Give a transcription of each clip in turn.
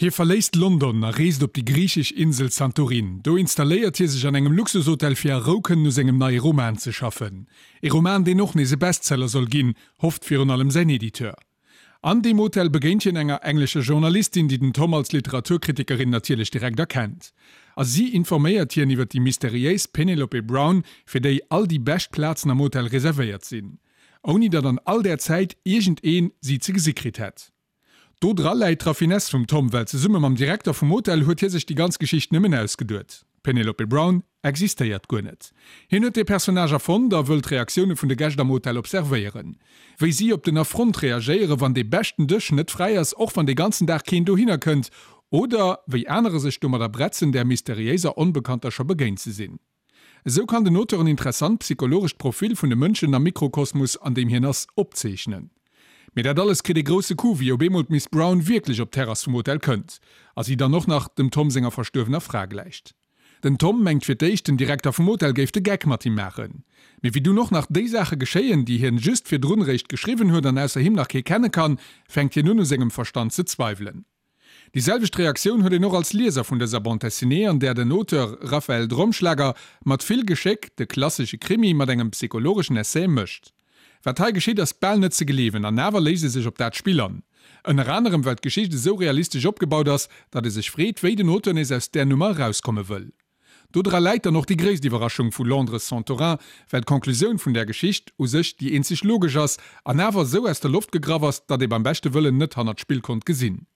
Hie verléisst London a reest op déi griichesch Insel Santorin. Do installéiert hie sech an engem Luxushotel fir a Rou kënnen u sengem neie Roman ze schaffen. E Roman, deen och nees e Bestseller soll ginn, hofft virun allem säin Editeur. An deem Hotel begéint hien enger englescher Journalistin, déi den Tom als Literaturkritikerin natierlech direkt erkennt. A si informéiert hien iwwer déi mysteriéis Penelope Brown, fir déi all déi bescht Plazen am Hotel reservéiert sinn. Ouni datt an all där Zäit iergendee si ze gesi kritt hätt. Do dra läit d'Raffinesse vum Tom, well zesumme mam Direkter vum Hotel huet hie sech déi ganz Geschicht nëmmen ausgeduet. D'Penelope Brown existéiert guer net. Hien huet dee Personnage erfonnt a wëll d'Reaktioune vun de Gäscht am Hotel observéieren. Wéi si op den Affront reagéieren, wann dee beschten Dësch net fräi ass, och wann dee ganzen Dag keen dohinner kënnt, oder wéi anerer sech domadder bretzen, där mysteriéiser Onbekannter scho begéint ze sinn. Esou kann den Auteur en interessant psychologescht Profil vun de Mënschen am Mikrokosmos, an deem hien ass, opzeechnen. Mee dat alles kritt ee grousse Coup, wéi op eemol d'Miss Brown wierklech op d'Terrass vum Hotel kënnt a si dann och nach dem Tom senger verstuerwener Fra gläicht. Den Tom mengt fir d'éischt, den Direkter vum Hotel géif de Geck mat him maachen. Mee wéi dunn och nach déi Saache geschéien, déi hien just virdrun réischt geschriwwen huet an ausser him nach kee kenne kann, fänkt hien un u sengem Verstand ze zweiwelen. Déi selwecht Reaktioun huet een och als Lieser vun dëser Bande dessinée, an där den Auteur Raphaël Dromschlager mat vill Geschéck de klassesche Krimi mat engem psychologeschen Essai mëscht. Wat hei geschitt ass bal net ze gleewen, an awer léisst e sech op dat Spill an. Ënner anerem well d'Geschicht esou realistesch opgebaut ass, datt ee sech freet, wéi den Auteur nees aus där Nummer erauskomme wëll. Do dra läit dann och déi gréisst Iwwerraschung vu Londres Santorin, well d'Conclusioun vun där Geschicht u sech déi eenzeg logesch ass, an awer esou aus der Loft gegraff ass, datt ee beim beschte Wëllen net hannert d'Spill konnt gesinn.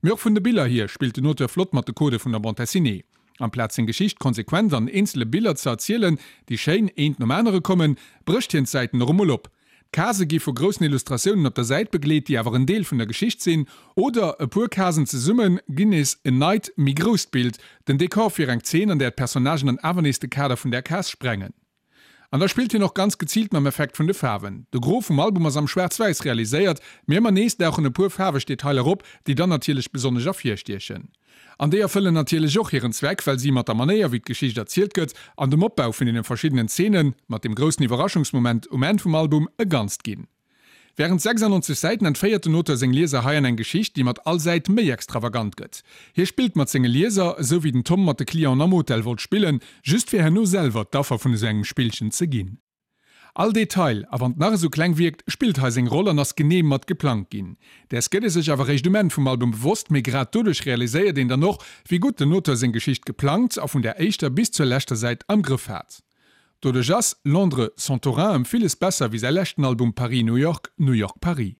Mee och vun de Biller hier spillt den Auteur flott mat de Codë vun der Bande dessinée. Amplaz seng Geschicht konsequent an eenzele Biller ze erzielen, déi schéin eent nom anere kommen, brécht hien d'Säiten och emol op. D'Casë gi vu groussen Illustratiounen op der Säit begleet, déi awer en Deel vun der Geschicht sinn, oder e puer Casen zesumme ginn nees en neit, méi grousst Bild, den Dekor fir eng Zeen, an där d'Personnagen dann awer nees de Kader vun där Case sprengen. An da spillt hien och ganz geziilt mam Effekt vun de Faarwen. De Gros vum Album ass am Schwaarz-Wäiss realiséiert, mee ëmmer nees dauchen e puer faarweg Detailer op, déi dann natierlech besonnesch ervirstiechen. An déi erfëllen natierlech och hiren Zweck, well si mat der Manéier wéi d'Geschicht erzielt gëtt an dem Opbau vun deene verschiddenen Zeenen, mat dem groussen Iwwerraschungsmoment um Enn vum Album, e Ganzt ginn. Wärend 96 Säiten entféiert den Auteur seng Lieser hei an eng Geschicht, déi mat all Säit méi extravagant gëtt. Hie spillt mat senge Lieser, esou wéi den Tom mat de Clienten am Hotel wollt spillen, just fir herno selwer d'Affer vun esou engem Spillchen ze ginn. All Detail, a wann 't nach esou kleng wierkt, spillt hei seng Roll an ass genee mat geplangt ginn. Däers gëtt ee sech awer réischt um Enn vum Album bewosst, mee grad doduerch realiséiert een dann och, wéi gutt den Auteur seng Geschicht geplangt a vun der éischter bis zur leschter Säit am Grëff hat. Doduerch ass Londres Santorin ëm villes besser wéi säi leschten Album Paris New York, New York Paris.